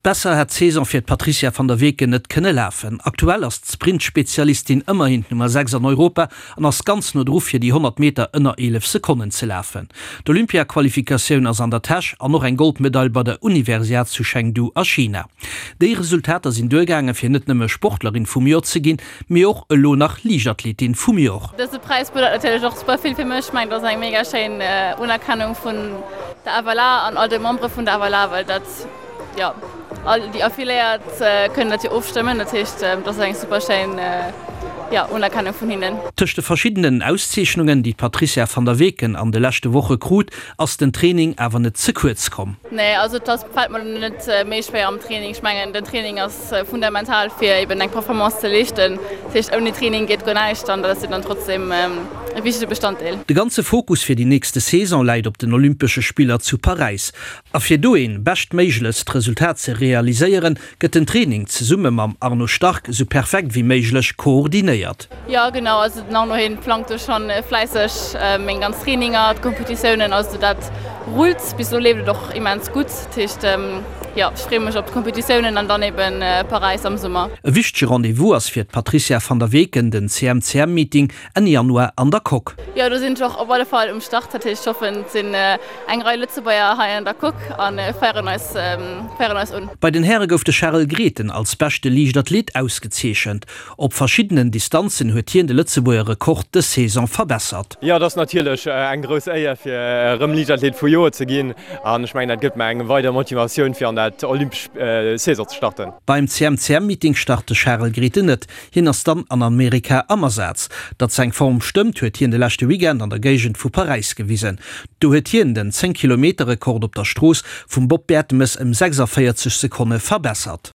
Besser hätt d'Saison fir d'Patrizia van der Weken net kënne lafen. Aktuell ass d'Sprint-Spezialistin ëmmerhin d'Nummer 6 an Europa an ass ganz no dru fir déi 100 Meter ënner 11 Sekonnen ze lafen. D'Olympia-Qualifikatioun ass an der Täsch an och eng Goldmedail bei der Universiad zu Chengdu a China. Déi Resultater sinn duergaange fir net nëmme Sportlerin vum Joer ze ginn, mee och elo nach Liichtathletin vum Joer. Dëse Präis bedeit natierlech och super vill fir mech. Ech mengen, dat ass eng mega schéin Unerkennung vun der FLA an all de Membere vun der FLA, well dat, Jo, all déi Affiliéiert kënnen dat jo ofstëmmen. Dat heescht, dat ass eng super schéin, jo, Unerkennung vun hinnen. Tëscht de verschiddenen Auszeechnungen, déi d'Patricia van der Weken an de leschte Woche krut, ass den Training awer net ze kuerz komm. Nee, also et ass, fält mer net méi schwéier am Training. Ech mengen, den Training ass fundamental, fir eben eng Performance ze leeschten. Dat heescht, ouni Training geet guer näischt an dat ass jo dann trotzdem e wichtege Bestanddeel. De ganze Fokus fir déi nächste Saison läit op den Olympesche Spiller zu Paräis. A fir do een beschtméiglechst Resultat ze realiséieren, gëtt den Training zesumme mam Arno Stark sou perfekt wéi méiglech koordinéiert. Jo genau, also den Arno hien plangt do schon fläisseg meng ganz Traininger, d'Kompetitiounen, also dat rullt. Bis elo leeft et och immens gutt, dat heescht jo ech freeë mech op d'Kompetitiounen an dann eben Paräis am Summer. E wichtege Rendez-vous ass fir d'Patricia van der Weken den CMCM-Meeting Enn Januar an der Coque. Jo, do sinn ech och op alle Fall um Start. Dat heescht, ech hoffen, et sinn eng Rei Lëtzebuerger hei an der Coque a féieren eis, féieren eis un. Bei den Häre gouf de Charel Grethen als beschte Liichtathlet ausgezeechent. Op verschiddenen Distanzen huet hien de Lëtzebuerger Rekord dës Saison verbessert. Jo, et ass natierlech eng grouss Éier fir erëm Liichtathlet vum Joer ze ginn an ech mengen dat gëtt mer eng weider Motivatioun fir an dat olympesch Saison ze starten. Beim CMCM-Meeting start de Charel Grethen net. Hien ass dann an Amerika am Asaz. Datt seng Form stëmmt, huet hien de leschte Weekend an der Géigend vu Paräis gewisen. Do huet hien den 10 Kilometer Rekord op der Strooss vum Bob Bertemes ëm 46 Sekonne verbessert.